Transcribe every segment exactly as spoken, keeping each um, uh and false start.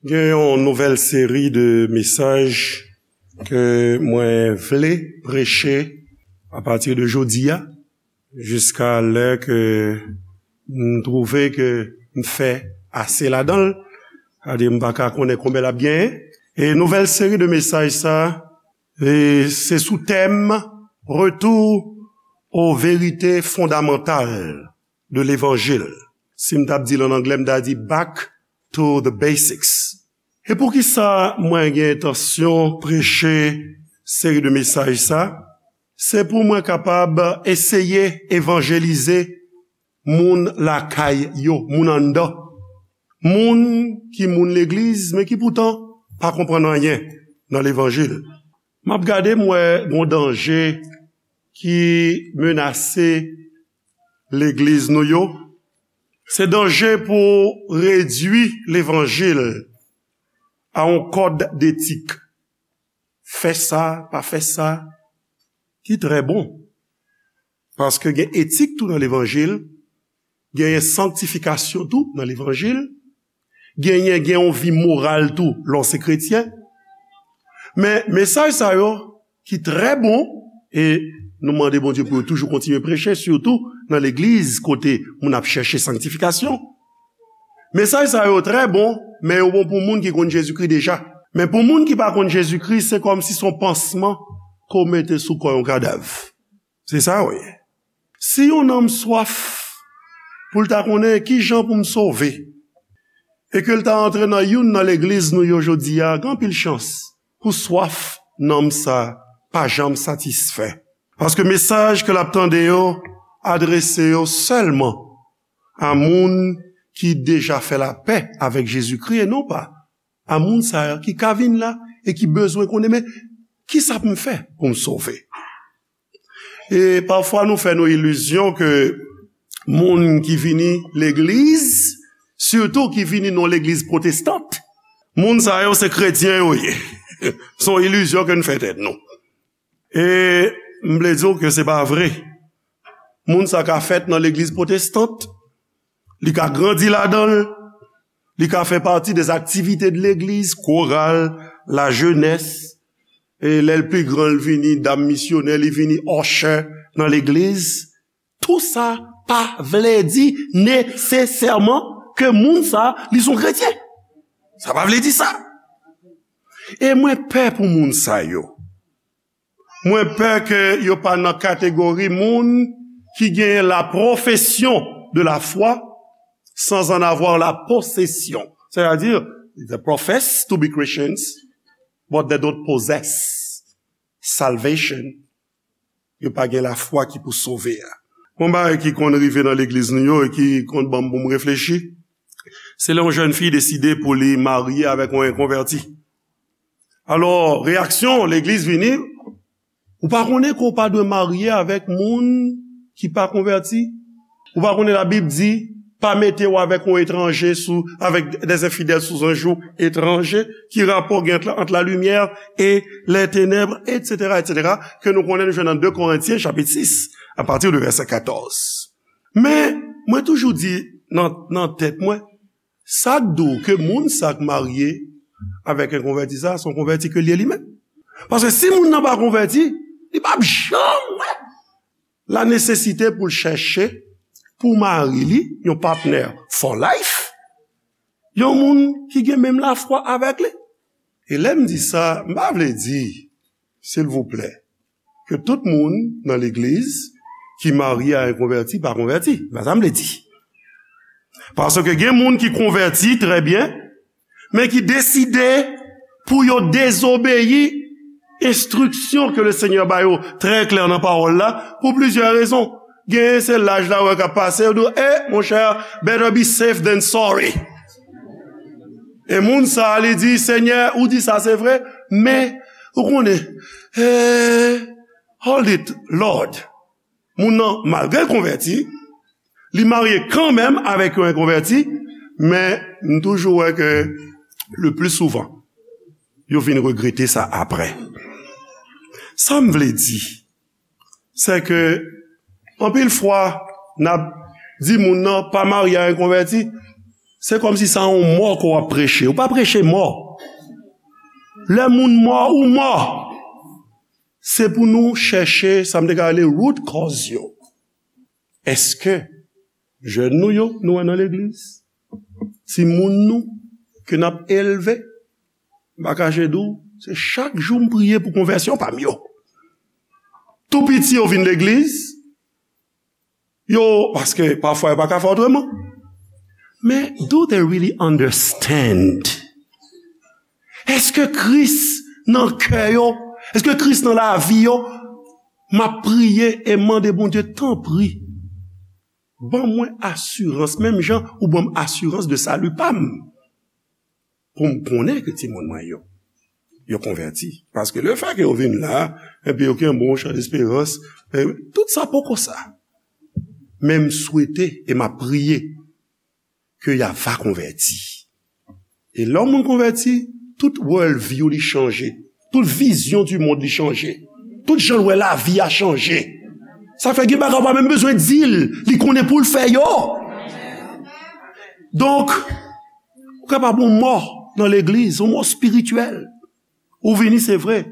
Gen yon nouvèl seri de mesaj ke mwen vle preche apati de jodi a, jiska lè ke m twouve ke m fè ase ladan l, sa di m pa ka konnen konbyen l ap genyen. E nouvèl seri de mesaj sa, e se sou tèm Retour aux vérités fondamentales de l'évangile. Si m t ap di l an anglè, m ta di Back to the Basics. E poukisa mwen gen entansyon preche seri de mesaj sa? Se pou mwen kapab eseye evanjelize moun lakay yo, moun anndan. Moun ki moun legliz, men ki poutan pa konprann anyen nan levanjil. M ap gade, m wè gon danje ki menase legliz nou yo. Se danje pou redui levanjil a yon kòd detik. Fè sa, pa fè sa, ki trè bon. Paske gen etik tou nan levanjil, genyen sanktifikasyon tou nan levanjil, genyen, gen yon vi moral tou lè w se kretyen. Men mesaj sa yo ki trè bon, e nou mande Bondye pou yo toujou kontinye preche, sitou nan legliz kote moun ap chèche sanktifikasyon. Mesaj sa yo trè bon, men yo bon pou moun ki konn Jezikri deja. Men pou moun ki pa konn Jezikri, se kòmsi se yon pansman ke w mete sou kò yon kadav. Se sa yo ye. Si yon nanm swaf pou l ta konnen kijan pou m sove, e ke l ta antre nan youn nan legliz nou yo jodi a, gen anpil chans pou swaf nanm sa pa janm satisfè. Paske mesaj ke l ap tande yo adrese yo sèlman a moun ki deja fè lapè avèk Jezikri e non pa a moun sa a ki ka vin la e ki bezwen konnen, men kisa pou m fè pou m sove? E pafwa nou fè nou ilizyon ke moun ki vini legliz, sitou ki vini nan legliz pwotestant, moun sa yo se kretyen yo ye. Se yon ilizyon ke n fè tèt nou. E m vle di w ke se pa vre. Moun sa ka fèt nan legliz pwotestant, li ka grandi ladan l, li ka fè pati de aktivite de legliz, koral, lajenès, e lè l pi gran, l vini dam misyonè, li vini usher nan legliz. Tou sa pa vle di nesesèman ke moun sa, li se yon kretyen. Sa pa vle di sa. E mwen pè pou moun sa yo. Mwen pè ke yo pa nan kategori moun ki gen la profession de la foi sans en avoir la possession. C'est-à-dire, they profess to be Christians, but they don't possess salvation. Yo pa gen lafwa ki pou sove a. Yon bagay ki konn rive nan legliz nou yo e ki konn ban m pou m reflechi, se lè yon jèn fi deside pou li marye avèk yon enkonvèti. Alò, reyaksyon legliz vini, ou pa konnen ke w pa dwe marye avèk moun ki pa konvèti? Ou pa konnen Labib di, pa mete w avèk yon etranje sou, avec des infidèles sous un joug étranger, ki rapò gen ant, ant la lumière et les ténèbres, et cetera, et cetera, ke nou konnen nou jwenn nan de Korentyen, chapit sis, a pati de vèsè katòz. Men, mwen toujou di nan, nan tèt mwen, sa k di w ke moun sa k marye avèk enkonvèti sa, se yon konvèti ke l ye li menm? Paske si moun nan pa konvèti, li p ap janm wè la nesesite pou l chèche pou mari li yon patnè for life, yon moun ki gen menm lafwa avèk li. E lè m di sa, m pa vle di, silvouplè, ke tout moun nan legliz ki marye a enkonvèti pa konvèti. Se pa sa m vle di. Paske gen moun ki konvèti trè byen, men ki deside pou yo dezobeyi enstriksyon ke Lesenyè ba yo trè klè nan pawòl la, pou plizyè rezon. Genyen se laj la wè k ap pase, yo di w, "Eh, monchè, better be safe than sorry." E moun sa a, li di, "Senyè, ou di sa, se vre, men, ou konnen, eh, hold it, Lord." Moun nan, malgre l konvèti, li marye kanmenm avèk yon enkonvèti, men m toujou wè ke le pli souvan, yo vin regrete sa apre. Sa m vle di, se ke anpil fwa, n ap di moun nan pa marye a enkonvèti, Se kòmsi se yon mò ke w ap preche. Ou pa preche mò. Lè moun mò, ou mò. Se pou nou chèche, sa m te ka rele root cause yo. Èske jèn nou yo, nou wè nan legliz? Timoun nou, ke n ap elve? M pa kache di w, se chak jou m priye pou konvèsyon pa m yo. Tou piti yo vin legliz, yo, paske pafwa yo pa ka fè otreman. Men, do they really understand? Èske Kris nan kè yo? Èske Kris nan lavi yo? M ap priye e mande Bondye, tanpri, ban mwen asirans, menm jan ou ban m asirans de sali pa m, pou m konnen ke timoun mwen yo, yo konvèti. Paske lefètke yo vin la, epi yo gen bon chan desperans, e tout sa poko sa. Men m swete e m ap priye ke y a va konvèti. E lè yon moun konvèti, tout world view li chanje. Tout vizyon di mond li chanje. Tout jan l wè lavi a chanje. Sa fè gen bagay ou pa menm bezwen di l, li konnen pou l fè yo. Donk, ou kapab yon mò nan legliz, yon mò espirityèl. Ou vini, se vre,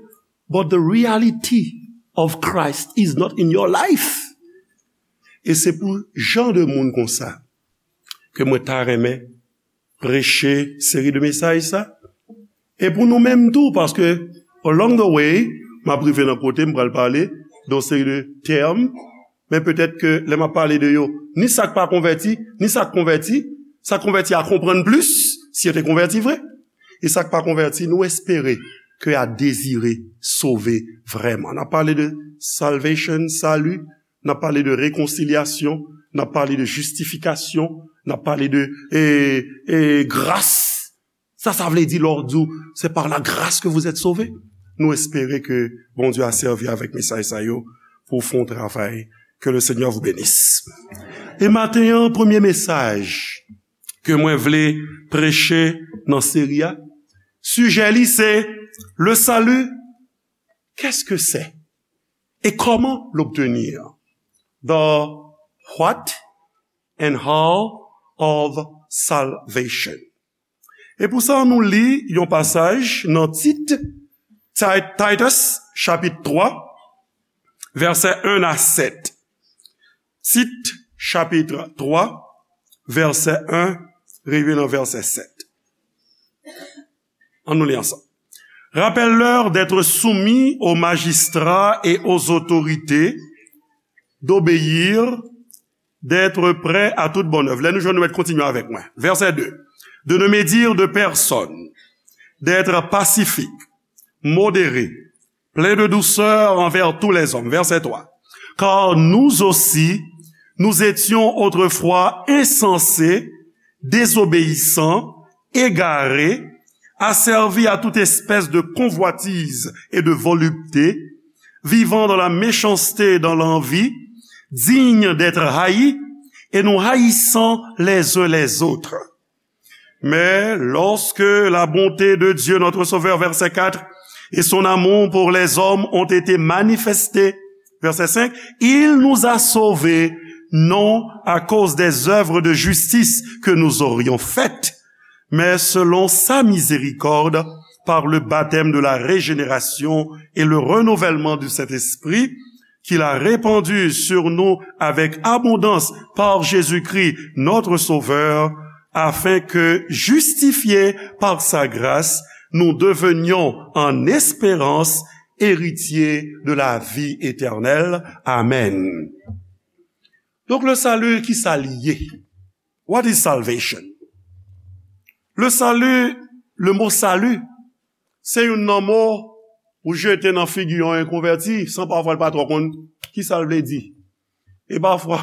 but the reality of Christ is not in your life. E se pou jan de moun konsa ke mwen ta renmen preche seri de mesaj sa. E pou nou menm tou, paske along the way, m ap rive nan kote m pral pale de yon seri de tèm, men petèt ke lè m ap pale de yo, ni sa k pa konvèti, ni sa k konvèti, sa k konvèti a konprann plis, si yo te konvèti vre. E sa k pa konvèti, nou espere ke a dezire sove vrèman. N ap pale de salvation, sali, n ap pale de rekonsilyasyon, n ap pale de jistifikasyon, n ap pale de, e, e, gras. Sa, sa vle di lè w di w, c'est par la grâce que vous êtes sauvés. Nou espere ke Bondye a sèvi avèk mesaj sa yo pou fè yon travay. Que le Seigneur vous bénisse. E maten an, premye mesaj ke mwen vle preche nan seri a, sijè li se le salut, qu'est-ce que c'est? Et comment l'obtenir? The what and how of salvation. E pou sa, nou li yon pasaj nan Tit, Ti-, Titus, chapit twa, vèsè en a sèt. Tit, chapit twa, vèsè en, rive nan vèsè sèt. Ann nou li ansanm. Rappelle-leur d'être soumis aux magistrats et aux autorités, d'obéir, d'être prêts à toute bonne œuvre. Lè nou jwenn, nou mèt kontinye avèk mwen. Vèsè de. De ne médire de personne, d'être pacifique, modéré, plein de douceur envers tous les hommes. Verset trois. Car nous aussi, nous étions autrefois insensés, désobéissants, égarés, asservis à toute espèce de convoitise et de volupté, vivant dans la méchanceté et dans l'envie, dignes d'être haïs, et nous haïssant les uns les autres. Mais lorsque la bonté de Dieu, notre Sauveur, verset quatre, et son amour pour les hommes ont été manifestés, verset cinq, il nous a sauvés, non à cause des œuvres de justice que nous aurions faites, mais selon sa miséricorde, par le baptême de la régénération et le renouvellement du Saint-Esprit, qu'il a répandu sur nous avec abondance par Jésus-Christ, notre Sauveur, afin que, justifiés par sa grâce, nous devenions en espérance héritiers de la vie éternelle. Amen. Donk, le salut, ki sa li ye? What is salvation? Le salut, le mot salut, se youn nan mo ou jete nan figi yon enkonvèti, san pafwa l pa twò konn ki sa l vle di. E pafwa,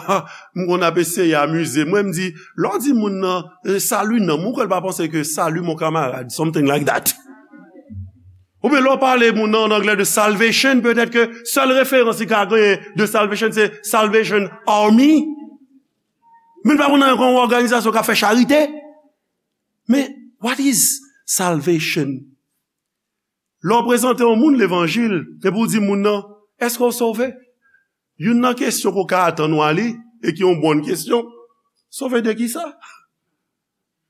m konn ap eseye amize mwen, m di, lè w di moun nan, eh, salut nan, moun kwè l pa panse ke salut mon camarade, something like that. Oubyen lè w pale moun nan an anglè de salvation, petèt ke sèl referans li ka genyen de salvation, se Salvation Army. Men l pa konn anyen kon yon òganizasyon k ap fè charite. Men, what is salvation? Lè w prezante yon moun levanjil, epi w di moun nan, èske w sove? Youn nan kesyon ke w ka atann ou a li, e ki yon bòn kesyon, sove de ki sa?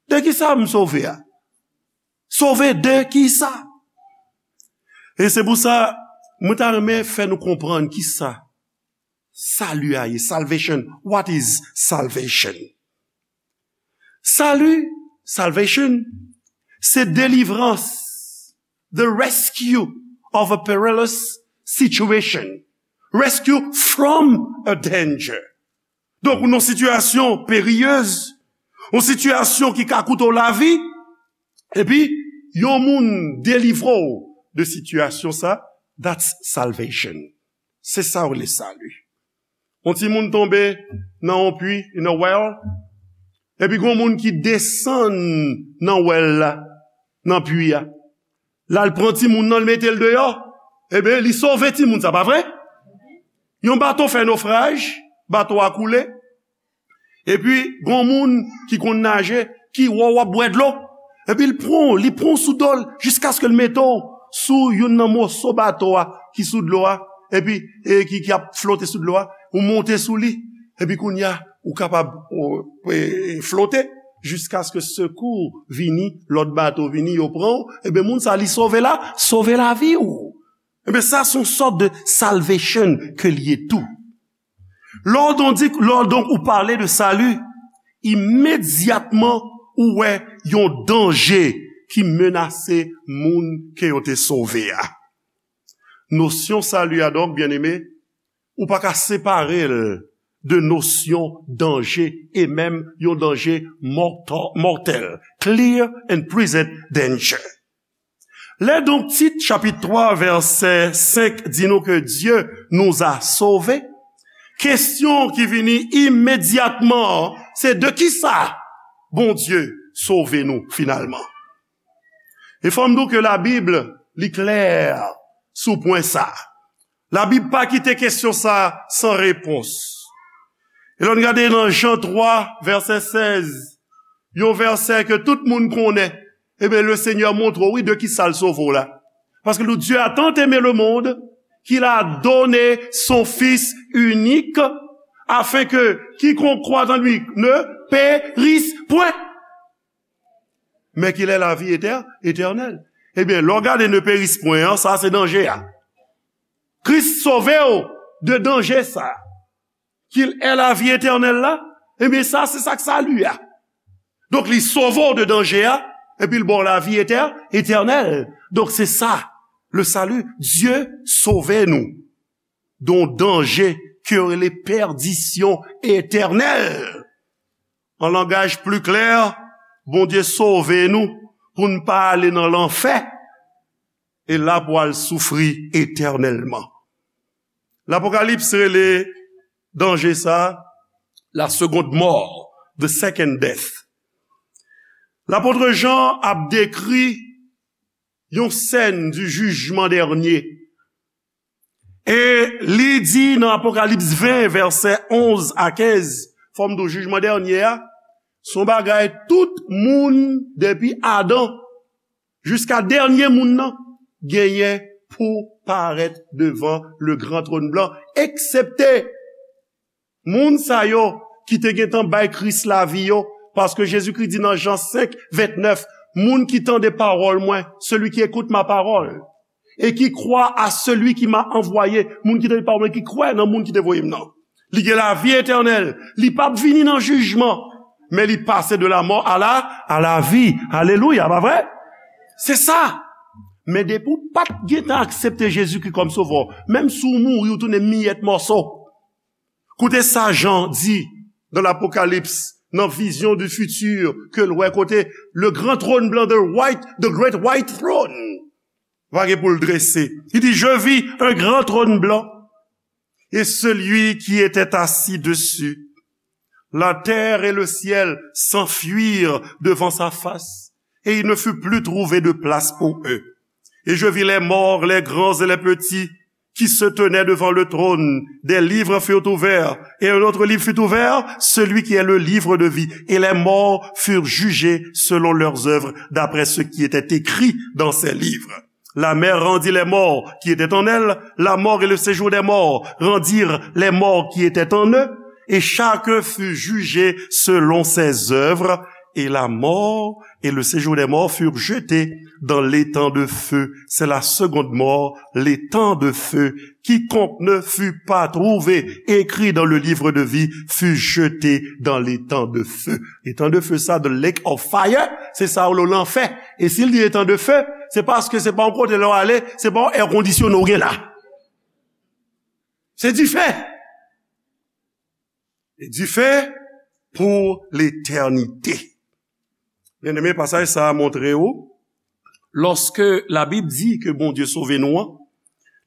De kisa m sove a? Sove de kisa? E se pou sa, mwen ta renmen fè nou konprann kisa sali a ye. Salvation. What is salvation? Sali, salvation, se delivrans, the rescue of a perilous situation. Rescue from a danger. Donk, ou nan sitiyasyon periyez, yon sitiyasyon ki ka koute w lavi, epi yon moun delivre w de sitiyasyon sa, that's salvation. Se sa w rele sali. Yon timoun tonbe nan yon pwi, in a well, epi gon moun ki desann nan well la, nan pwi a. L al pran timoun nan, l mete l deyò. Ebyen, li sove timoun sa, pa vre? Yon bato fè nofraj, bato a koule. Epi, gon moun ki konn naje, ki wè w ap bwè dlo. Epi, l pran w, li pran w sou do l, jiskaske l mete w sou youn nan moso bato a ki sou dlo a. Epi, e, ki, ki ap flote sou dlo a. Ou monte sou li. Epi, kounye a, ou kapab, ou, e, e, flote jiskaske sekou vini, lòt bato vini, yo pran w. Ebyen, moun sa, li sove la, sove lavi w. Ebyen, sa, se yon sòt de salvation ke l ye tou. Lè w donk di, lè w donk ou pale de sali, imedyatman ou wè yon danje ki menase moun ke yo te sove a. Nosyon sali a, donk, byeneme, ou pa ka separe l de nosyon danje, e menm yon danje mòtò-, mòtèl. Clear and present danger. Lè donk Tit chapit twa vèsè senk di nou ke Dieu nous a sauvés, kesyon ki vini imedyatman an, se de kisa Bondye sove nou finalman? E fò m di w ke Labib, li klè sou pwen sa. Labib pa kite kesyon sa san repons. E lè n gade nan Jan twa, vèsè sèz, yon vèsè ke tout moun konnen, ebyen, le Seigneur montre w, wi, de kisa l sove w la. Parce que le Dieu a tant aimé le monde qu'il a donné son Fils unique, afin que quiconque croit en lui ne périsse point, mais qu'il ait la vie éter-, éternelle. Ebyen, lè w gade ne périsse point an, sa se danje a. Kris sove w de danje sa. Qu'il ait la vie éternelle la, ebyen, sa, se sa k sali a. Donk, li sove w de danje a, epi l ba w lavi etè-, etènèl. Donk, se sa, le salut. Dye sove nou de yon danje ke yo rele pèdisyon etènèl. An langaj pli klè, Bondye sove nou pou n pa ale nan lanfè, e la pou al soufri etènèlman. Lapokalips rele danje sa a la seconde mort, the second death. Lapot Jan ap dekri yon sèn di jijman dènye. E li di nan Apokalips ven, vèsè onz a kenz, fò m di w, jijman dènye a, se yon bagay tout moun depi Adan jiska dènye moun nan genyen pou parèt devan le gran tròn blan, eksepte moun sa yo ki te gentan bay Kris lavi yo, paske Jezikri di nan Jan senk ventnèf, moun ki tande pawòl mwen, celui qui écoute ma parole, et qui croit à celui qui m'a envoyé, moun ki tande pawòl mwen, ki kwè nan moun ki te voye m nan, li gen lavi etènèl, li p ap vini nan jijman, men li pase de la mort à la, à la vie. Alelouya, pa vre? Se sa. Men depi w pa t gentan aksepte Jezikri kòm sovè w, menm si w mouri, w tounen miyèt mòso. Koute sa Jan di nan Lapokalips, nan vizyon du futur ke l wè kote le grand trône blanc, the white, the great white throne, va gen pou l drese. Li di, je vis un grand trône blanc, et celui qui était assis dessus. La terre et le ciel s'enfuirent devant sa face, et il ne fut plus trouvé de place pour eux. Et je vis les morts, les grands et les petits, qui se tenaient devant le trône. Des livres furent ouverts, et un autre livre fut ouvert, celui qui est le livre de vie. Et les morts furent jugés selon leurs œuvres, d'après ce qui était écrit dans ces livres. La mer rendit les morts qui étaient en elle, la mort et le séjour des morts rendirent les morts qui étaient en eux, et chacun fut jugé selon ses œuvres. Et la mort et le séjour des morts furent jetés dans l'étang de feu. C'est la seconde mort, l'étang de feu. Quiconque ne fut pas trouvé écrit dans le livre de vie fut jeté dans l'étang de feu. L'étang de feu, sa, the lake of fire, se sa yo rele lanfè. E si l di étang de feu, se paske se pa yon kote lè w ale, se pa yon èkondisyone w gen la. Se dife. E dife pou letènite. Byeneme, pasaj sa a montre w, lòske Labib di ke Bondye sove nou an,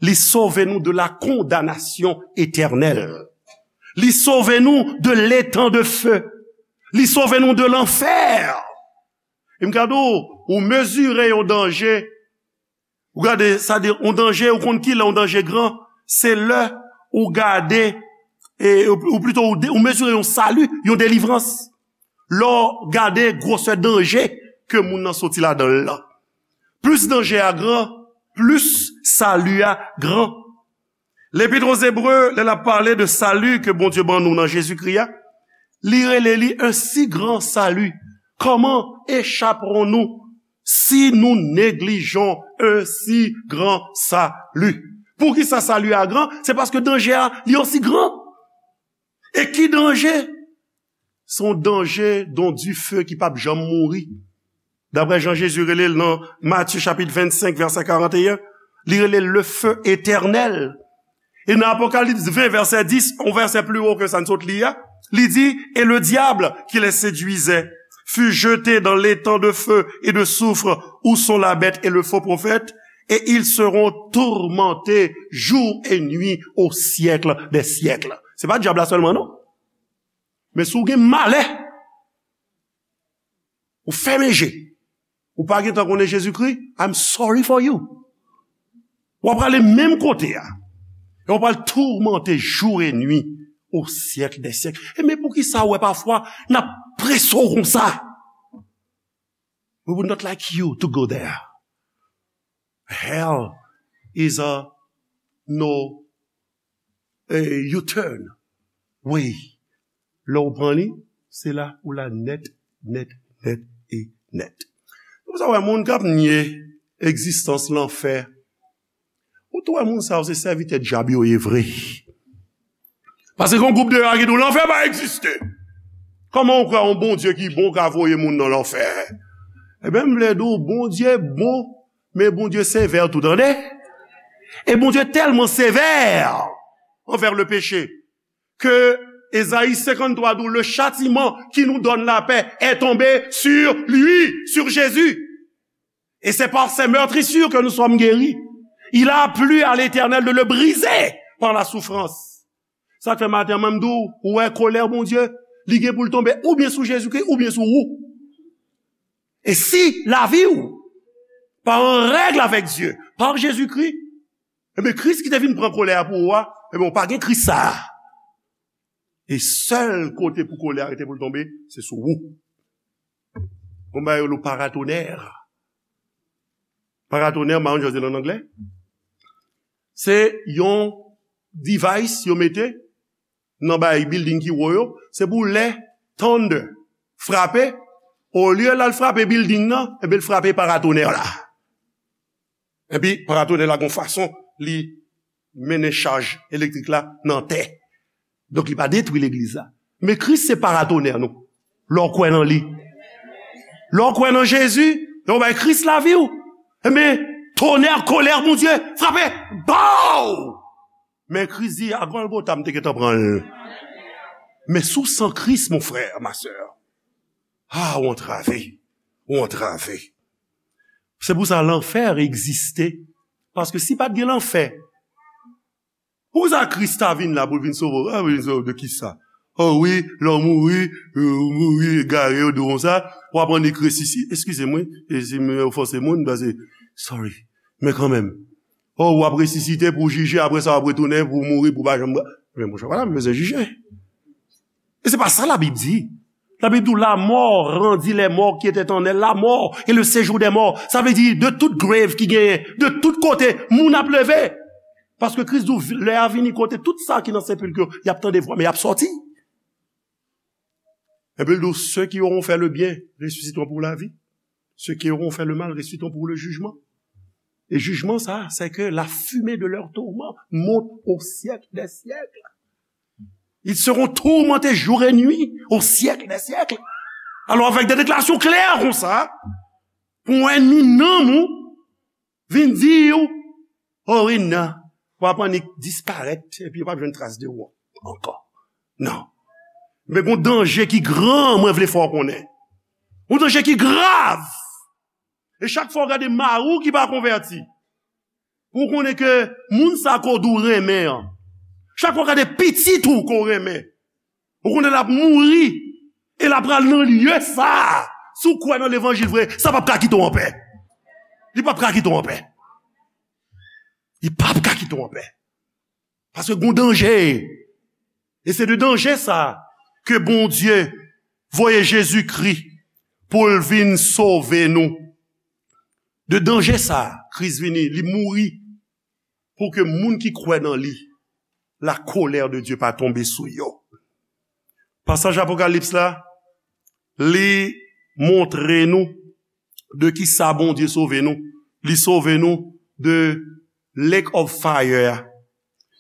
li sove nou de la kondanasyon etènèl. Li sove nou de letan de fe. Li sove nou de lanfè. E m ka di w, ou mezire yon danje, ou gade, sa di, yon danje, ou konn ki lè yon danje gran, se lè ou gade, e, ou, ou plito, ou, de- ou mezire yon sali, yon delivrans. Lè w gade gwosè danje ke moun nan soti ladan l lan. Plis danje a gran, plis sali a gran. Lepit o Zebre, lè l ap pale de sali ke Bondye ban nou nan Jezikri a, li rele li un si grand salut. Comment échapperons-nous si nous négligeons un si grand salut? Poukisa sali a gran? Se paske danje a, li osi gran. E ki danje? Se yon danje, yon dife ki p ap janm mouri. Daprè jan Jezi rele l nan Matye chapit vennsenk, vèsè karanteyen, li rele l le feu éternel. E nan Apokalips ven, vèsè dis, yon vèsè pli wo ke sa n sot li a, li di, et le diable qui les séduisait fut jeté dans l'étang de feu et de soufre où sont la bête et le faux prophète, et ils seront tourmentés jour et nuit au siècle des siècles. Se pa dyab la sèlman, non. Men si w gen malè, ou fèmen je, ou pa gentan konnen Jezikri, I'm sorry for you. W ap prale menm kote a. E w pral toumante jou e nwi o syèk dè syèk. E men poukisa w wè pafwa n ap prese w konsa? We would not like you to go there. Hell is a no, eh, U-turn way. Lè w pran li, se la ou la nèt, nèt, nèt e nèt. Se pou sa w wè moun k ap nye egzistans lanfè. Ou tou wè moun sa yo se sèvitè dyab yo ye vre. Paske gen yon gwoup de yo ki di w lanfè pa egziste. Kòman ou kwè yon Bondye ki bon ka voye moun nan lanfè? Ebyen, m vle di w, Bondye bon, men Bondye sevè tou, tande. E Bondye tèlman sevè anvè le péché ke Ezayi senkanntwa di w, le châtiment qui nous donne la paix est tombé sur lui, sur Jésus. Et c'est par ses meurtrissures que nous sommes guéris. Il a plu à l'Éternel de le briser par la souffrance. Sa k fè maten an, mwen m di w, ou wè kolè Bondye, li gen pou l tonbe oubyen sou Jezikri, oubyen sou ou. E si lavi w pa an règ avèk Dye, pa Jezikri, ebyen, Kris ki te vin pran kolè a pou ou a, ebyen, ou pa gen Kris sa a. E sèl kote pou kolè a rete pou l tonbe, se sou ou. Gon bagay yo rele paratonnerre. Paratonnerre, m pa konn jan yo di l an anglè. Se yon device yo mete nan bay building ki wo yo, se pou lè thunder frape, olye l al frape building nan, ebyen l frape paratonnerre la. Epi paratonnerre la gon fason li mennen chaj elektrik la nan tè. Donk li pa detwi legliz la. Men Kris se paratonnerre nou. Lè w kwè nan li. Lè w kwè nan Jezi, lè w bay Kris lavi w, ebyen, tonnerre, kolè Bondye, frape! Bow! Men Kris di, a Gòlgota, m te gentan pran l. Men sou san Kris, mon frè, ma sè, a, ou antrave. Ou antrave. Se pou sa lanfè egziste. Paske si pa t gen lanfè, poukisa Kris ta vin la pou l vin sove w? A, vin sove w de kisa? O wi, lè w mouri, ou mouri egare, yo di w konsa, w ap annik resisi-, eskize m, wi, e si m ofanse moun, paske, sorry. Men kanmenm, o, w ap resisite pou w jije, apre sa w ap retounen pou w mouri, pou w pa janm. Men monchè, pa la m bezwen jije. E se pa sa Labib di. Labib di w, la mort rendit les morts qui étaient en elle, la mort et le séjour des morts. Sa vle di, de tout grave ki genyen, de tout kote, moun ap leve. Paske Kris di w, lè a vini kote tout sa ki nan sepilk yo, y ap tande vwa, men y ap sòti. Epi l di w, ceux qui auront fait le bien ressusciteront pour la vie. Ceux qui auront fait le mal ressusciteront pour le jugement. Et jugement, ça, c'est que la fumée de leur tourment monte au siècle des siècles. Ils seront tourmentés jour et nuit au siècle des siècles. Alò, avèk de deklarasyon klè konsa, pou yon ènmi nanm ou vin di w, oh wi, non, w ap annik disparèt, epi yo p ap jwenn tras de ou ankò. Non. Men gon danje ki gran, mwen vle fè w konnen. Gon danje ki grav. E chak fwa w gade mari w ki pa konvèti, pou w konnen ke moun sa ke w di w renmen an, chak fwa w gade pitit ou ke w renmen, ou konnen l ap mouri, e l ap pral nan lye sa a. Si w kwè nan levanjil vre, sa p ap ka kite w anpè. Li p ap ka kite w anpè. Li p ap ka kite w anpè. Paske gon danje. E se de danje sa ke Bondye voye Jezikri pou l vin sove nou. De danje sa, Kris vini, li mouri pou ke moun ki kwè nan li, la colère de Dieu pa tonbe sou yo. Pasaj Apokalips la, li montre nou de ki sa Bondye sove nou. Li sove nou de lake of fire a.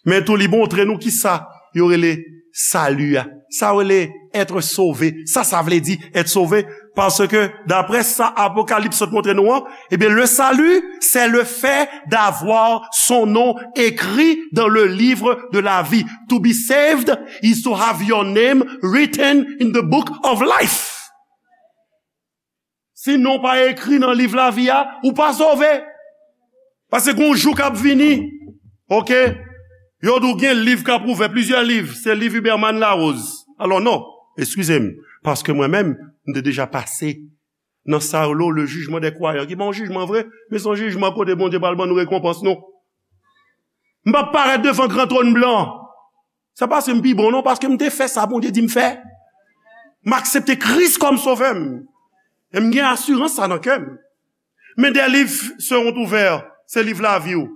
Men tou, li montre nou ki sa yo rele sali a. Sa yo rele être sauvé. Sa, sa vle di être sauvé. Paske, daprè sa Apokalips sot montre nou an, ebyen, le salut, c'est le fait d'avoir son nom écrit dans le livre de la vie. To be saved is to have your name written in the book of life. Si non pa ekri nan liv lavi a, ou pa sove. Paske gon jou k ap vini, oke? Yo di w gen liv k ap ouvè, plizyè liv, se liv Huberman Larose. Alò non, eskize m, paske mwen menm, m te deja pase nan sa yo rele le jugement des croyants, ki pa yon jijman vre, men se yon jijman kote Bondye pral ban nou rekonpans nou. M p ap parèt devan gran twòn blan. Se pa paske m pi bon non, paske m te fè sa Bondye di m fè. M aksepte Kris kòm sovè m. E m gen asirans sa nan kè m. Men des livres seront ouverts, se liv lavi w.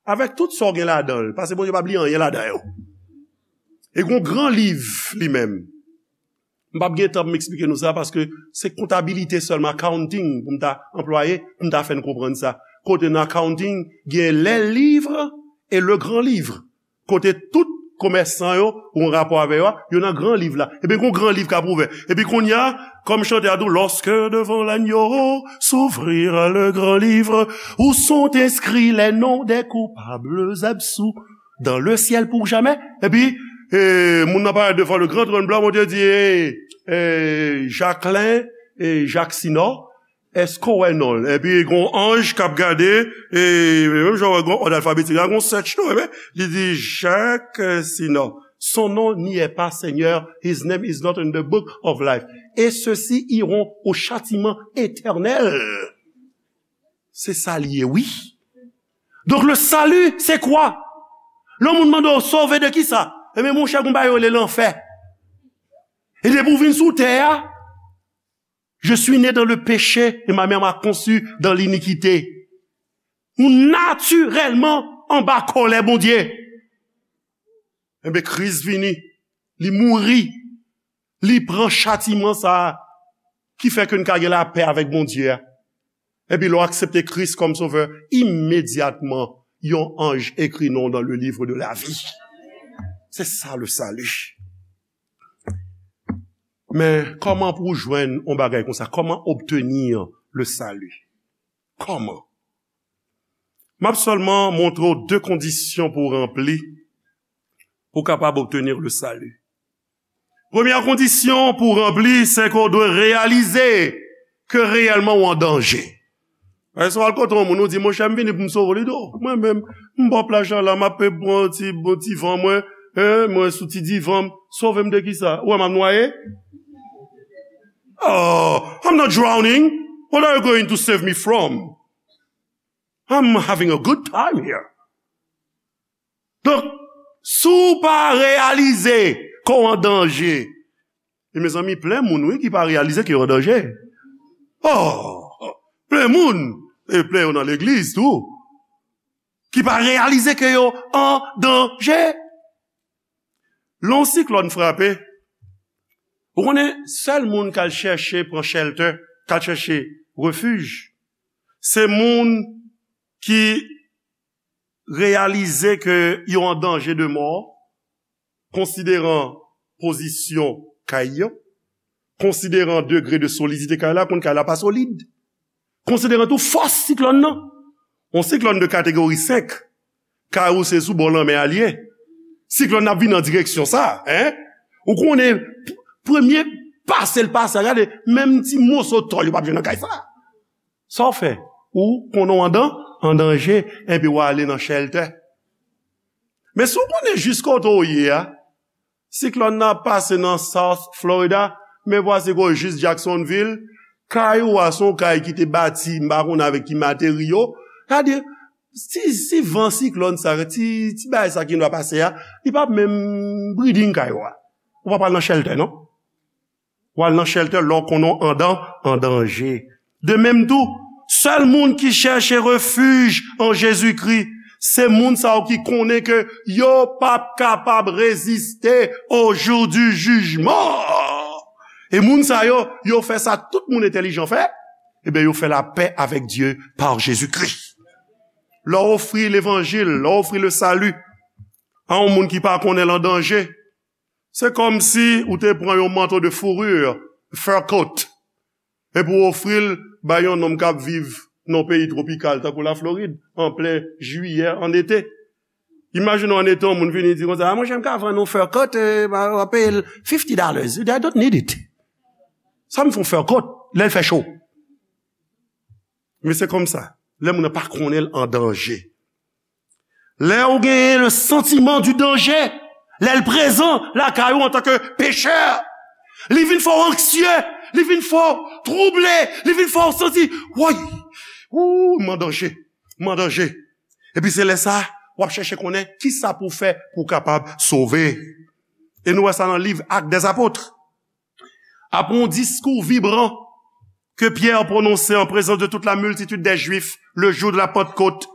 Avèk tout sa w gen ladan l, paske Bondye p ap li anyen ladan yo. E gon gran liv li menm. M p ap gen tan pou m eksplike nou sa, paske se kontabilite sèlman, accounting, pou m ta anplwaye, pou m ta fè n konprann sa. Kote nan accounting, gen les livres et le grand livre. Kote tout komèsan yo, ou an rapò avè yo a, yo nan gran liv la. Epi gon gran liv k ap ouvè. Epi kounye a, kòm chante a di w, lorsque devant l'agneau s'ouvrir le grand livre, où sont inscrits les noms des coupables absous dans le ciel pour jamais. Epi, e, moun nan parèt devan le grand trône blanc, Bondye di, e, e, Jacquelin, e, Jacques Sinor, èske w wè non l? Epi gon anj k ap gade, e, menm jan w wè gon òd alfabetik la, gon search tou, epi li di, Jacques Sinor, son nom n'y est pas, Seigneur, his name is not in the book of life. Et ceux-ci iront au châtiment éternel. Se sa l ye, wi. Donk, le salut, c'est quoi? Lè yon moun mande w sove de kisa? Ebyen, monchè, gon bagay yo rele lanfè. E depi w vin sou tè a, je suis né dans le péché et ma mère m'a conçu dans l'iniquité. Ou natirèlman anba kòlè Bondye. Enben, Kris vini, li mouri, li pran chatiman sa a ki fè ke n ka gen lapè avèk Bondye a. Epi lè w aksepte Kris kòm sovè, imedyatman, yon anj ekri non w dans le livre de la vie. C'est ça le salut. Men kòman pou w jwenn yon bagay konsa? Comment obtenir le salut? Kòman? M ap sèlman montre w de kondisyon pou w ranpli, pou w kapab obtenir le salut. Premyè kondisyon pou w ranpli, se ke w dwe reyalize ke reyèlman w an danje. Paske si w al kote yon moun, ou di, monchè, m vini pou m sove w, li di, o, mwen menm, m bò plaj la, m ap pran ti, bon, ti van mwen, en, mwen sou ti divan m, sove m de kisa? Ou wè m ap nwaye? Oh, I'm not drowning. What are you going to save me from? I'm having a good time here. Donk, si w pa reyalize ke w an danje, e mezanmi, plen moun, wi, ki pa reyalize ke yo an danje. Oh, plen moun, e plen yo nan legliz tou, ki pa reyalize ke yo an danje. Lè yon siklòn frape, Ou konnen, sèl moun k al chèche pran shelter, k al chèche refij, se moun ki reyalize ke yo an danje de mò, konsideran pozisyon kay yo, konsideran degre de solidite kay la, konn kay la pa solid, konsideran tou fòs siklòn nan. Yon siklòn de kategori senk, kay ou se sou bò lanmè a l ye. Siklòn nan ap vin nan direksyon sa, en? Ou konnen, p-, premye pase l pase a, gade, menm ti moso tòl yo p ap jwenn nan kay sa. Sa w fè? Ou konnen w andan, an danje, epi w ale nan shelter. Men si w konnen jis kote w ye a, siklòn nan ap pase nan South Florida, men vwasi ke w jis Jacksonville, kay ou a se yon kay ki te bati, m pa konnen avèk ki materyo. Sa di, si, si van siklòn sa, ti, ti bagay sa ki dwa pase a, li p ap menm breathing kay ou a. Ou p ap al nan shelter, non? W al nan shelter lè w konnen w andan, an danje. De menm tou, sèl moun ki chèche refij an Jezikri, se moun sa yo ki konnen ke yo p ap kapab reziste au jour du jugement. E moun sa yo, yo fè sa tout moun entèlijan fè, ebyen yo fè lapè avèk Dye pa Jezikri. Lè w ofri levanjil, lè w ofri le salut a yon moun ki pa konnen l an danje, se kòmsi ou te pran yon manto de fourrure, fur coat, epi w ofri l bay yon nonm k ap viv nan yon peyi twopikal, tankou Laflorid, an plen jiyè, an ete. Imajine w an ete, yon moun vini di konsa, "A, monchè, m ka vann yon fur coat, eh, m a, m a peye l fifty dollars. I don't need it. Sa m fè yon fur coat, lè l fè cho?" Men se kòmsa, lè moun nan pa konnen l an danje. Lè ou genyen le sentiment du danger, lè l prezan lakay ou antanke pechè, li vin fè w anksye, li vin fè w twouble, li vin fè w santi, woy, ou, m an danje, m an danje. Epi se lè sa, w ap chèche konnen kisa pou w fè pou w kapab sove. E nou wè sa nan liv Actes des Apôtres. Après un discours vibrant que Pierre prononçait en présence de toute la multitude des Juifs le jour de la Pentecôte,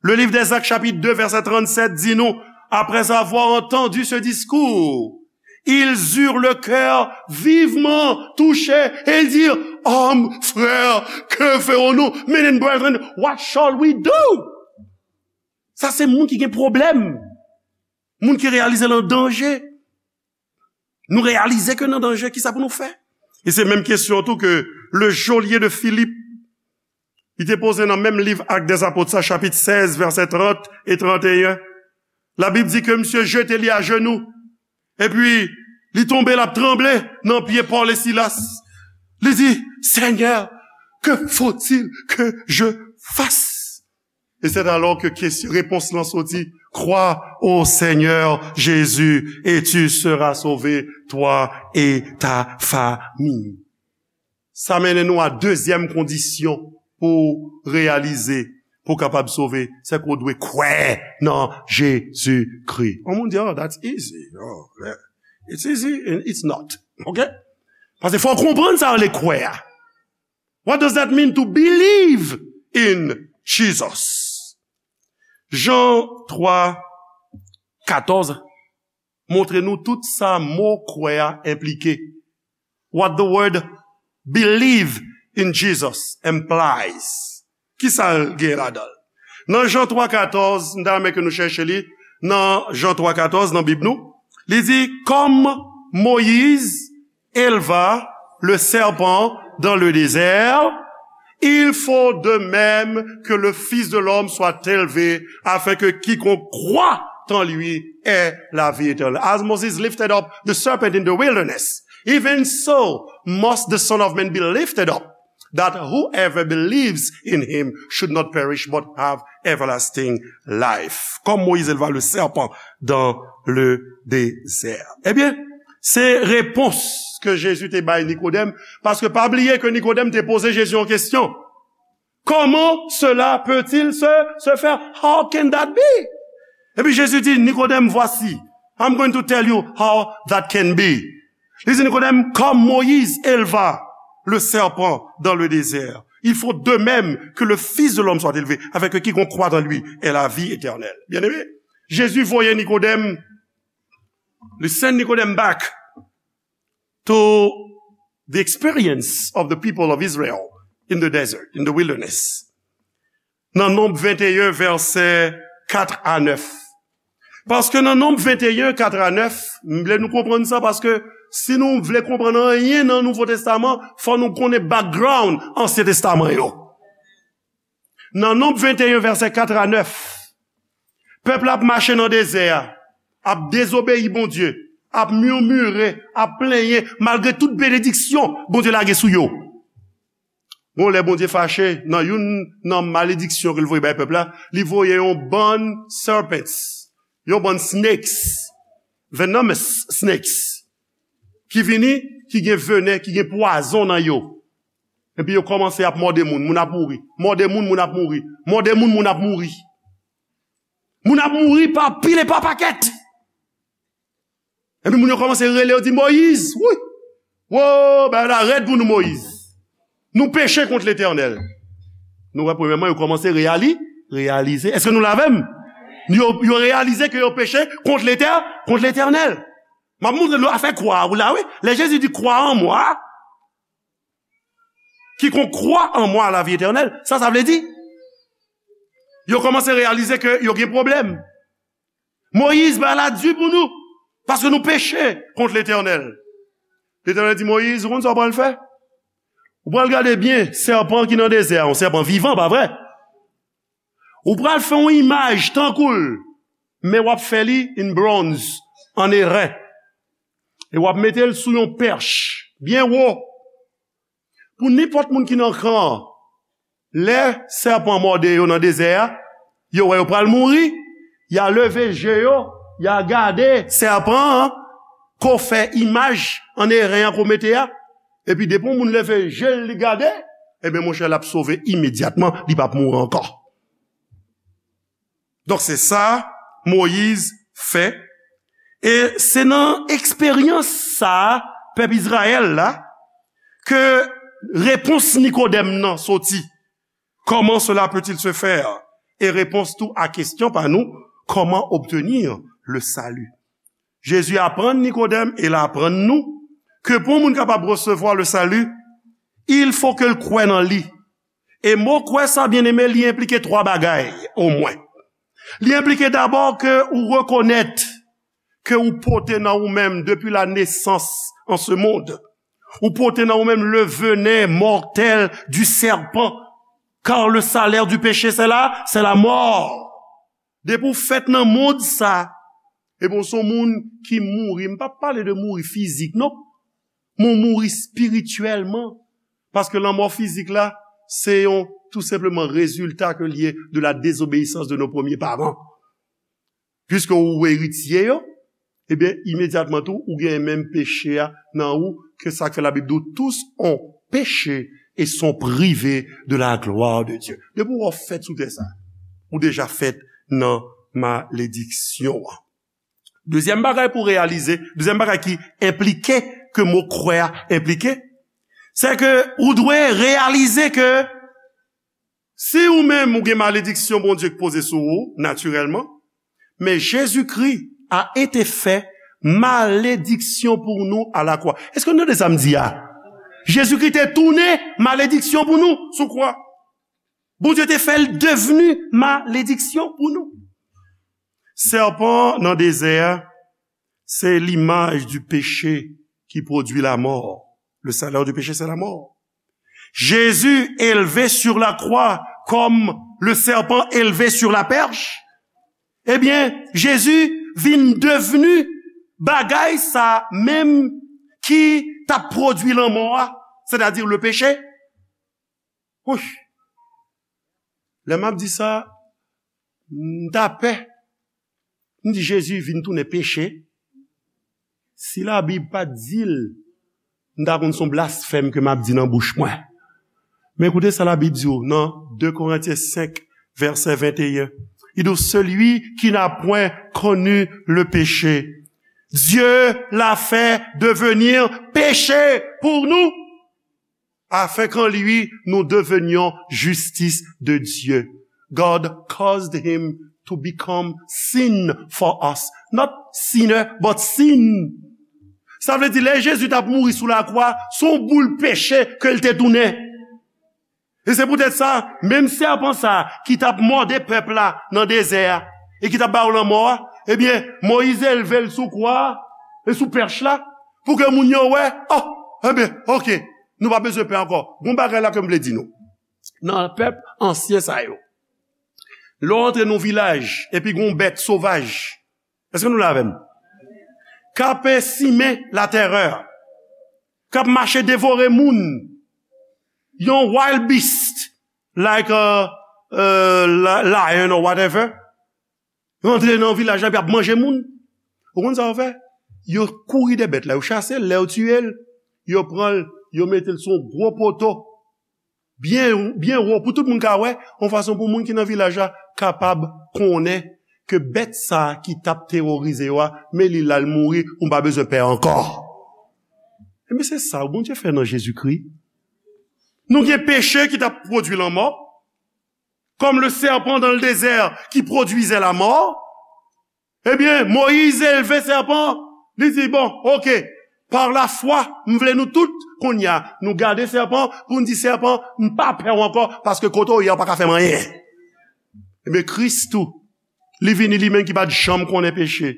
le livre des Actes, chapitre deux, verset trente-sept, dit nous, après avoir entendu ce discours, ils eurent le cœur vivement touché et ils dirent, "Hommes, frères, que ferons-nous? Men and brethren, what shall we do?" Sa se moun ki gen pwoblèm. Moun ki reyalize l an danje. Nou reyalize ke n an danje, kisa pou nou fè? E se menm kesyon tou ke le geôlier de Philippe, li te poze nan menm liv Actes des Apôtres sa, chapit sèz, vèsè trant e tranteyen. Labib di ke misye jete li ajenou, epi li tonbe, l ap tranble nan pye Pòl e Silas. Li di, "Seigneur, que faut-il que je fasse?" Et c'est alors que question, réponse lan soti, "Crois au Seigneur Jésus et tu seras sauvé, toi et ta famille." Sa mennen nou a dezyèm kondisyon pou reyalize, pou kapab sove, se ke w dwe kwè nan Jezikri. Yon moun di, "Oh, that's easy. Oh, yeah. It's easy and it's not." Ok? Paske fò w konprann sa rele kwè a. What does that mean to believe in Jesus? Jan twa katòz montre nou tout sa mo kwè a enplike. What the word believe in Jesus implies. Kisa l gen ladan l? Nan Jan twa katòz, m ta renmen ke nou chèche li, nan Jan twa katòz, nan Bib nou, li di, "Comme Moïse éleva le serpent dans le désert, il faut de même que le Fils de l'homme soit élevé, afin que quiconque croit en lui ait la vie éternelle." As Moses lifted up the serpent in the wilderness, even so must the Son of Man be lifted up, that whoever believes in him should not perish but have everlasting life. Comme Moïse éleva le serpent dans le désert. Ebyen, se repons ke Jezi te bay Nikodèm, paske pa bliye ke Nikodèm te poze Jezi yon kesyon. "Comment cela peut-il se, se faire? How can that be?" Epi Jezi di, "Nikodèm, voici, I'm going to tell you how that can be." Li di, "Nikodèm, comme Moïse éleva le serpent dans le désert, il faut de même que le Fils de l'homme soit élevé, afin que quiconque croit en lui ait la vie éternelle." Byeneme, Jezi voye Nikodèm, li send Nikodèm back. to the experience of the people of Israel in the desert, in the wilderness. Nan Nonb venteyen, vèsè kat a nèf. Paske nan Nonb venteyen, kat a nèf, m vle nou konprann sa, paske si nou vle konprann anyen nan Nouvo Testaman, fò nou konnen background Ansyen Testaman yo. Nan Nonb venteyen, vèsè kat a nèf, pèp la ap mache nan dezè a, ap dezobeyi Bondye, ap mimire, ap plenyen, malgre tout benediksyon Bondye lage sou yo. Bon, lè Bondye fache, nan youn nan malediksyon ke l voye bay pèp la, li voye yon bann serpents, yon bann snakes, venomous snakes, ki vini, ki gen venen, ki gen pwazon nan yo. Epi yo kòmanse ap mòde moun, moun ap mouri. Mòde moun, moun ap mouri. Mòde moun, moun ap mouri. Moun ap mouri pa pil e pa pakèt. Epi moun yo kòmanse rele, yo di, Moyiz, wi! Wo, bagay la rèd pou nou, Moyiz. Nou peche kont Letènèl. Nou wè, premyèman, yo kòmanse reyali, reyalize. Èske nou la avè m? Yo, yo reyalize ke yo peche kont Letè-, kont Letènèl. M ap montre nou afè kwa a, ou la, wi. Lè Jezi di, crois en moi, quiconque croit en moi a la vie éternelle, sa, sa vle di, yo kòmanse reyalize ke yo gen pwoblèm. Moyiz, bagay la di pou nou, paske nou peche kont Letènèl. Letènèl di Moyiz, ou konn sa w pral fè? Ou pral gade byen sèpan ki nan dezè a, yon sèpan vivan, pa vre? Ou pral fè yon imaj tankou l, men w ap fè li in bronz, an eren. E w ap mete l sou yon pèch byen wo. Pou nenpòt moun ki nan kan an, lè sèpan mòde yo nan dezè a, yo wè yo pral mouri, y a leve je yo, y a gade sèpan an, ke w fè imaj an eren an ke w mete a, epi depi yon moun leve je l, li gade, ebyen, monchè, l ap sove imedyatman, li p ap mouri ankò. Donk, se sa Moyiz fè. E se nan eksperyans sa a, pèp Izrayèl la, ke repons Nikodèm nan soti. Comment cela peut-il se faire? E repons tou a kesyon pa nou, comment obtenir le salut? Jezi aprann Nikodèm e l aprann nou ke pou yon moun kapab resevwa le salut, il faut ke l kwè nan li. E mo kwè sa, byeneme, li enplike twa bagay, omwen. Li enplike dabò ke ou rekonèt ke ou pote nan ou menm, depuis la naissance en ce monde, ou pote nan ou menm le venin mortel du serpent, car le salaire du péché, c'est la, c'est la mort. Depi w fèt nan mond sa, epi w se yon moun ki mouri, m p ap pale de mouri fizik, non, men w mouri espirityèlman. Paske lanmò fizik la, se yon, tou senpleman, rezilta ke l ye de la désobéissance de nos premiers parents. Piske ou eritye yo, ebyen, imedyatman tou, ou gen menm peche a nan ou, ke sa k fè Labib di w, tous ont péché et sont privés de la gloire de Dieu. Depi w fèt sou tè sa, ou deja fèt nan malediksyon an. Dezyèm bagay pou reyalize, dezyèm bagay ki enplike, ke mo kwè a enplike, se ke ou dwe reyalize ke si ou menm ou gen malediksyon Bondye k poze sou ou, natirèlman, men Jezikri a été fait malédiction pour nous à la croix. Èske nou tande sa m di a? Jezikri te tounen malediksyon pou nou sou kwa. Bondye te fè l devni malediksyon pou nou. Sèpan nan dezè a, c'est l'image du péché qui produit la mort. Le salaire du péché, c'est la mort. Jésus élevé sur la croix comme le serpent élevé sur la perche. Ebyen, Jezi vin devni bagay sa menm ki t ap pwodui lanmò a, sètadi le peche. Wouch! Lè m ap di sa, m ta pè. M di Jezi vin tounen peche. Si Labib pa t di l, m ta konn se yon blasfèm ke m ap di nan bouch mwen. Men koute sa Labib di w nan de Korentyen senk, vèsè venteyen. Li di w, celui qui n'a point connu le péché, Dieu l'a fait devenir péché pour nous, afin qu'en lui nous devenions justice de Dieu. God caused him to become sin for us. Not sinner, but sin. Sa vle di, lè Jezi t ap mouri sou lakwa, se yon boul peche ke l te tounen. E se poutèt sa, menm sèpan sa a ki t ap mòde pèp la nan dezè a, e ki t ap ba yo lanmò a, ebyen, Moyiz elve l sou kwa a, e sou pèch la, pou ke moun yo wè, oh, ebyen, oke, nou pa bezwen pè ankò. Gon bagay la ke m vle di nou. Nan pèp ansyen sa yo, lè w antre nan yon vilaj, epi gon bèt sovaj, èske nou la avè m? K ap simen latèrè, k ap mache devore moun, yon wild beast, like a, uh, li- lion or whatever, rantre nan vilaj la, epi ap manje moun. Ou konn sa yo fè? Yo kouri dèyè bèt la, yo chase l, lè yo tiye l, yo pran l, yo mete l sou yon gwo poto, byen, byen wo, pou tout moun ka wè, yon fason pou moun ki nan vilaj la kapab konnen ke bèt sa a ki t ap teworize yo a, men li la, l mouri, ou pa bezwen pè ankò. Ebyen, se sa Bondye fè nan Jezikri. Nou gen peche ki t ap pwodui lanmò, comme le serpent dans le désert qui produisait la mort. Ebyen, Moyiz elve sèpan, li di, bon, oke, par la foi, m vle nou tout, kounye a, nou gade sèpan, pou n di sèpan, m pa pè w ankò, paske kote w ye a, w pa ka fè m anyen. Ebyen, Kris tou, li vini li menm ki pa t janm konnen peche.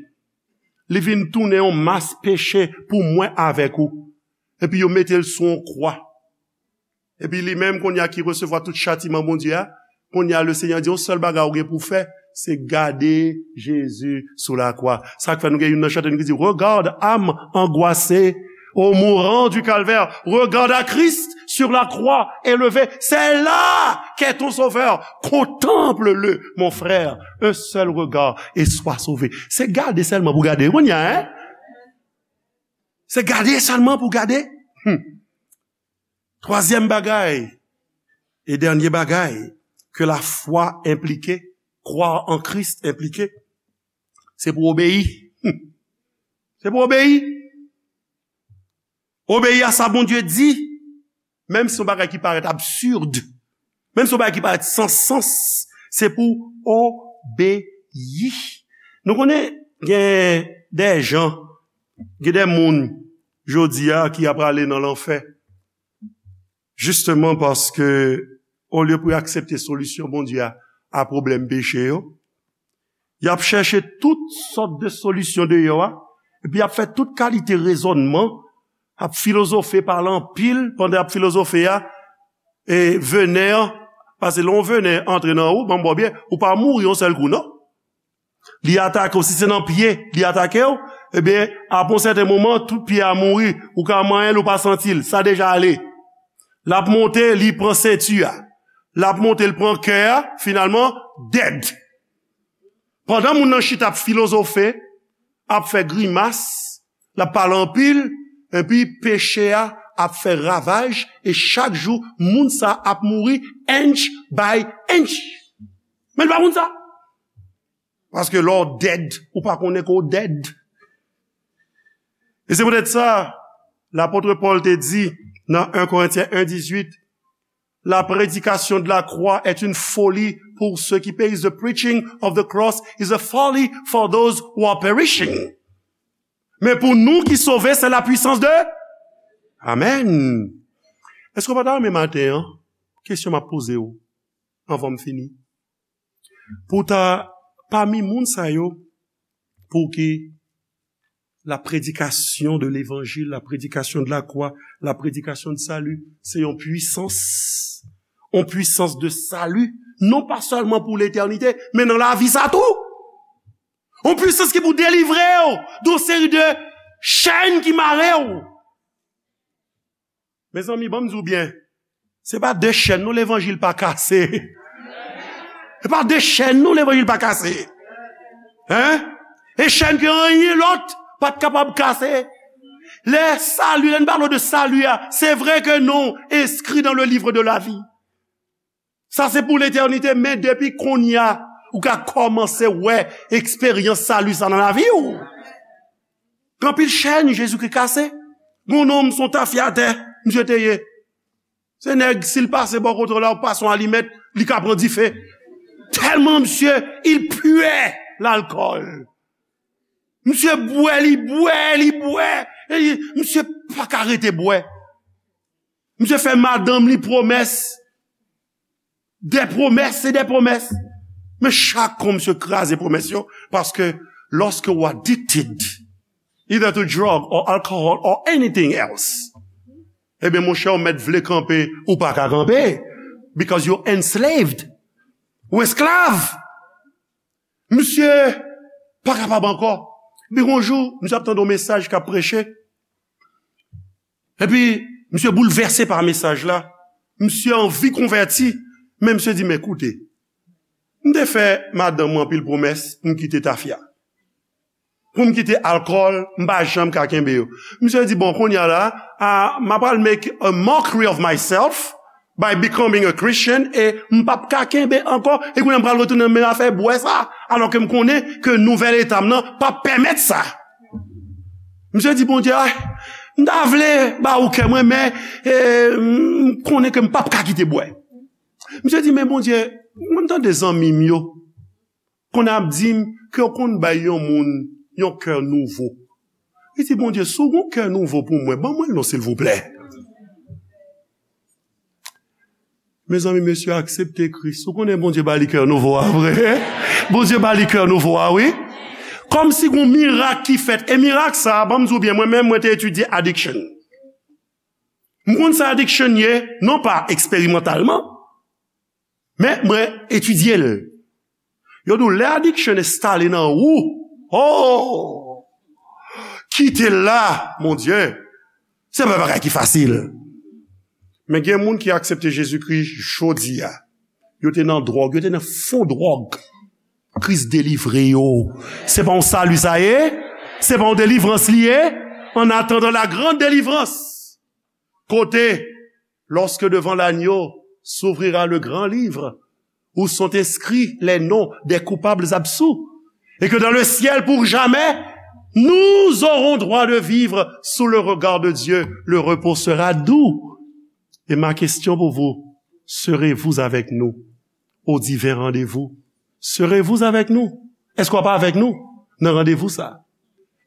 Li vin tounen yon mas peche pou mwen avèk ou. Epi yo mete l sou yon kwa. Epi li menm, kounye a ki resevwa tout chatiman Bondye a, kounye a, le Senyè di, yon sèl bagay ou gen pou fè, se gade Jezi sou lakwa. Sa k fè nou gen youn nan chante nou ki di, regarde, âme angoissée, au mourant du calvaire, regarde à Christ sur la croix élevé. C'est là qu'est ton sauveur. Contemple-le, mon frère. Un seul regard et sois sauvé. Se gade sèlman pou gade. Kounye a, hein? Se gade sèlman pou gade. Hmm. Twazyèm bagay e dènye bagay ke la foi enplike, croire en Christ enplike, se pou obeyi. Hmm. Se pou obeyi. Obeyi a sa Bondye di, menm si yon bagay ki parèt absid, menm si yon bagay ki parèt san sans, se pou obeyi. Nou konnen gen de jan, gen de moun jodi a ki ap prale nan lanfè. Jisteman paske, olye pou yo aksepte solisyon Bondye a, a pwoblèm peche yo, y ap chèche tout sòt de solisyon deyò a, epi y ap fè tout kalite rezònman, ap filozofe, pale anpil pandan y ap filozofe a, e venè an, paske lè yon venè antre nan ou, ban m ba w byen, ou pa mouri yon sèl kou, non. Li atake w, si se nan pye, li atake w, ebyen, apre yon sèten moman, tout pye a mouri, ou ka manyen l, ou pa santi l, sa deja ale. L ap monte, li pran senti a. L ap monte, l pran kè a, finalman, dead. Pandan moun nan chita ap filozofe, ap fè grimas, l ap pale anpil, epi peche a ap fè ravaj, e chak jou, moun sa ap mouri inch by inch. Men l pa konn sa. Paske lè w dead, ou pa konnen ke w dead. E se poutèt sa, lapot Pòl te di nan en Korentyen en dizuit, la prédication de la croix est une folie pour ceux qui périssent. The preaching of the cross is a folly for those who are perishing. Men pou nou ki sove, c'est la puissance de... Amen. Èske w pa ta renmen maten an? Kesyon m ap poze w anvan m fini. Pou ta pami moun sa yo, pou ki la prédication de l'évangile, la prédication de la croix, la prédication de salut, se yon pwisans, yon pwisans de salut, non pa sèlman pou letènite, men nan lavi sa tou. Yon pwisans ki pou delivre w de yon seri de chèn ki mare w. Mezanmi, ban m di w byen, se pa de chèn non levanjil pa kase. Se pa de chèn non levanjil pa kase. Hein? E chèn ke anyen lòt pa t kapab kase. Lè sali, lè n pale de sali a, se vre ke non enskri dans le livre de la vie. Sa se pou letènite, men depi kounye a, ou ka kòmanse wè eksperyans sali sa nan lavi w. Gen anpil chèn Jezikri kase. Gon nonm se yon tafyatè, misye te ye. Se nèg, si l pase bò kote w la, ou pase yon alimèt, li ka pran dife. Tèlman misye, il puait l'alcool. Misye bwè, li bwè, li bwè. E misye pa ka rete bwè. Misye fè madanm li pwomès. Des promesses et des promesses. Men chak kou misye kraze pwomès yo, paske lorsque you are addicted, either to drug or alcohol or anything else, ebyen, monchè, ou mèt vle kanpe, ou pa ka kanpe, because you're enslaved. Ou esklav. Misye pa kapab ankò. Epi yon jou, misye ap tande yon mesaj k ap preche. Epi, misye boulvèse pa mesaj la. Misye anvi konvèti, men misye di, "Men koute, m te fè madanm mwen anpil pwomès pou m kite tafya, pou m kite alkòl, m pa janm ka kenbe yo." Misye di, "Bon, kounye a la, a, m apral make a mockery of myself by becoming a Christian, e m p ap ka kenbe ankò, e kounye a m pral retounen nan menm afè bwè sa, alò ke m konnen ke nouvèl eta m nan p ap pèmèt sa." Misye di, "Bondye, ay, m ta vle ba ou kè mwen, men, e, m konnen ke m p ap ka kite bwè." Misye di, "Men Bondye, mwen tande zanmi m yo konn ap di m ke yo konn bay yon moun yon kè nouvo." Li di, "Bondye, si w gen yon kè nouvo pou mwen, ban mwen l non, silvouplè." Mezanmi, mesye aksepte Kris. Ou konnen Bondye ba li kè nouvo a vre? Bondye ba li kè nouvo a, wi. Kòmsi gen yon mirak ki fèt. E mirak sa a, ban m di w byen, mwen menm, mwen te etidye addiction. M konn sa addiction ye, non pa eksperimantalman, men mwen etidye l. Yo di w, lè addiction enstale nan ou, oh, kite l la, mon Dieu, se pa bagay ki fasil. Men gen moun ki aksepte Jezikri jodi a. Yo te nan dwòg, yo te nan fon dwòg. Kris delivre yo. Se pa yon sali sa ye? Se pa yon delivrans li ye? En attendant la grande délivrance. Kote, lorsque devant l'agneau s'ouvrira le grand livre, où sont inscrits les noms des coupables absous, et que dans le ciel pour jamais, nous aurons droit de vivre sous le regard de Dieu, le repos sera doux. Et ma question pour vous, serez-vous avec nous au divin rendez-vous? Serez-vous avec nous? Èske w ap avèk nou nan randevou sa a?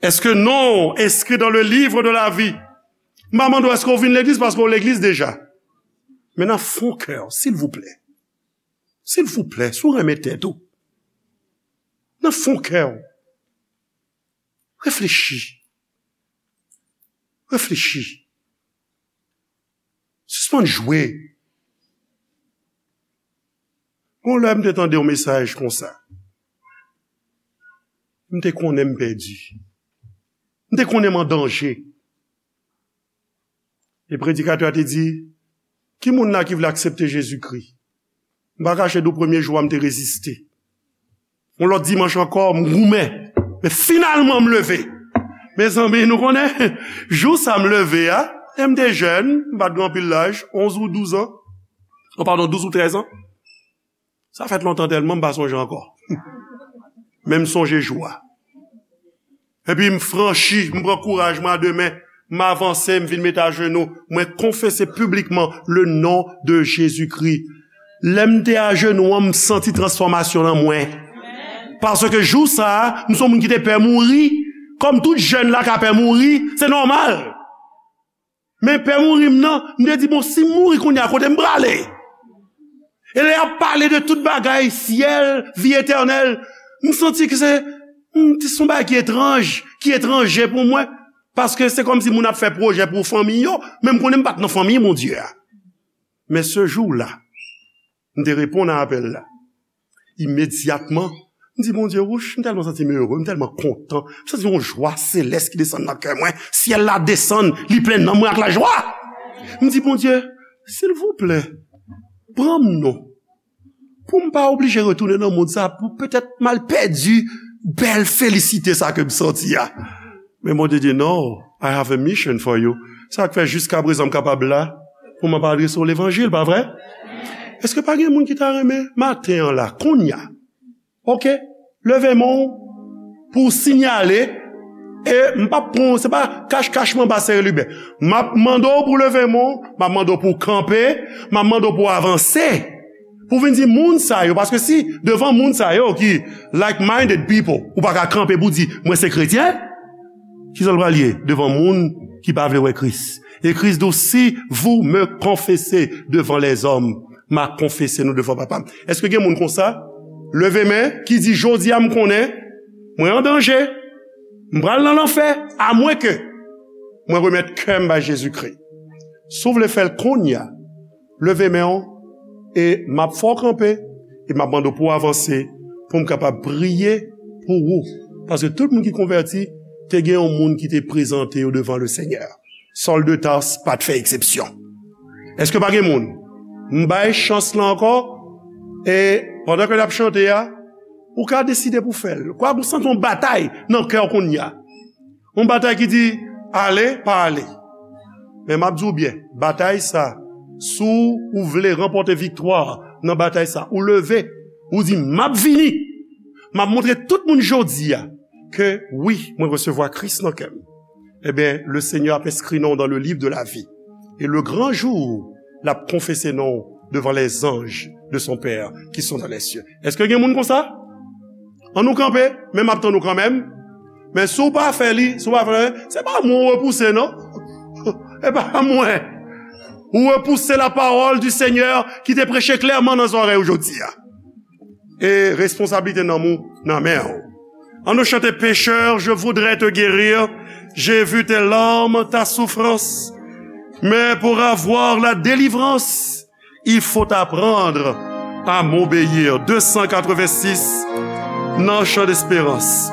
Èske non w enskri dans le livre de la vie? M pa mande w èske w vin legliz paske w legliz deja. Men nan fon kè w, silvouplè. Silvouplè, si w renmen tèt ou, nan fon kè w, reflechi. Reflechi. Sispann jwe. Gon lè m te tande yon mesaj konsa. M te konnen m pèdi. M te konnen m an danje. E predikatè a te di, "Ki moun la ki vle aksepte Jezikri?" M pa kache di w, premye jou a, m te reziste. Yon lòt dimanch ankò, m goumen. Men finalman, m leve. Mezanmi, nou konnen, jou sa m leve a, e m te jèn, m pa t gen anpil laj, onz ou douz an. Oh, padon, douz ou trèz an. Sa fèt lontan tèlman, m pa sonje ankò. Men m sonje jou a. Epi m franchi, m pran kouraj mwen a de men, m avanse, m vin met ajenou, mwen konfese piblikman le non de Jezikri. Lè m te ajenou an, m santi transfòmasyon nan mwen. Paske jou sa a, m se yon moun ki te pè mouri, kòm tout jèn la ka pè mouri, se nòmal. Men pè mouri m nan, m te di, "Bon, si m mouri kounye a, kote m prale?" E lè y ap pale de tout bagay, syèl, vi etènèl, m santi ke se, m, se yon bagay ki etranj, ki etranje pou mwen. Paske se kòmsi moun ap fè pwojè pou fanmi yo, men m konnen m pa t nan fanmi Bondye a. Men se jou la, m te reponn a apèl la. Imedyatman, m di, "Bondye, wouch, m tèlman santi m ere, m tèlman kontan. M santi yon jwa selès ki desann nan kè mwen. Syèl la desann, li plen nanm mwen ak lajwa." M di, "Bondye, silvouplè, pran m non. Pou m pa oblije retounen nan mond sa, pou petèt m al pèdi bèl felisite sa ke m santi a." Men Bondye di, "No, I have a mission for you." Sa k fè jiska prezan m kapab la, pou m ap adrese w levanjil, pa vre? Èske pa gen moun ki ta renmen maten an la, kounye a? Oke, leve men w pou w sinyale, e m p ap pran w, se pa kach kach m anba sere liben. M ap mande w pou w leve men w, m ap mande w pou w kanpe, m ap mande w pou w avanse. Pou w vin di moun sa yo, paske si devan moun sa yo ki like-minded people, ou pa ka kanpe pou w di, "Mwen se kretyen," Kisa l pral ye devan moun ki pa vle wè Kris? E Kris di w, "Si vous me confessez devant les hommes, m a konfese nou devan Papa m." Èske gen moun konsa? Leve men, ki di, "Jodi a, m konnen mwen an danje. M pral nan lanfè, amwenke mwen remèt kè m bay Jezikri." Si w vle fè l kounye a, leve men w, e m ap fè w kanpe, e m ap mande w pou w avanse, pou m kapab priye pou ou. Paske tout moun ki konvèti, te gen yon moun ki te prezante yo devan Lesenyè. Sòl de Tas pa t fè eksepsyon. Èske pa gen moun? M bay chans lan ankò, e pandan ke n ap chante a, ou ka deside pou fè l. Kwa ou santi yon batay nan kè w kounye a? Yon batay ki di, "Ale, pa ale." Men m ap di w byen, batay sa, si w vle ranpòte viktwa nan batay sa, ou leve, ou di, "M ap vini. M ap montre tout moun jodi a ke wi, mwen resevwa Kris nan kè m." Ebyen, le Seigneur ap enskri non w dans le livre de la vie. Et le grand jour, l ap konfese non w devant les anges de son Père qui sont dans les cieux. Èske gen moun konsa? An nou kanpe, men m ap tann ou kanmenm. Men si w pa fè li, si w pa fè li, se pa mwen w repouse, non. E pa mwen. Ou repouse la parole du Seigneur ki te preche klèman nan zòrèy ou jodi a. E responsablite nanm ou nan men w. An nou chante, Pécheur, je voudrais te guérir, j'ai vu tes larmes, ta souffrance, mais pour avoir la délivrance, il faut apprendre à m'obéir. Deux cent quatre-vingt-six, nan chan desperans.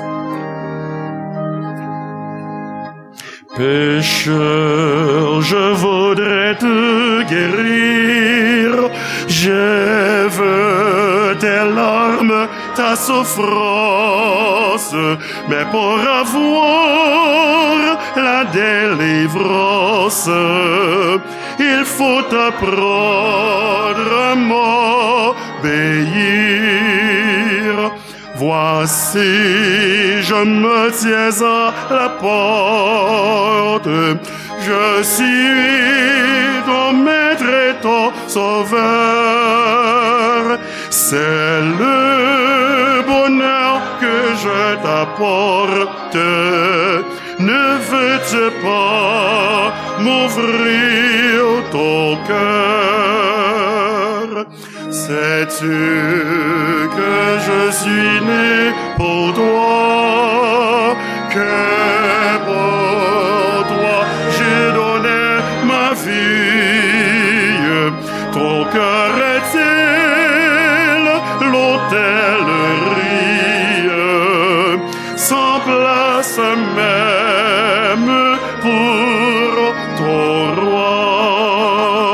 Pécheur, je voudrais te guérir. Je veux tes larmes, ta souffrance, mais pour avoir la délivrance, il faut apprendre à m'obéir. Voici, je me tiens à la porte. Je suis ton maître et ton sauveur. C'est le bonheur que je t'apporte. Ne veux-tu pas m'ouvrir ton cœur? Sais-tu que je suis né pour toi, que pour toi j'ai donné ma vie? Ton cœur est-il l'autel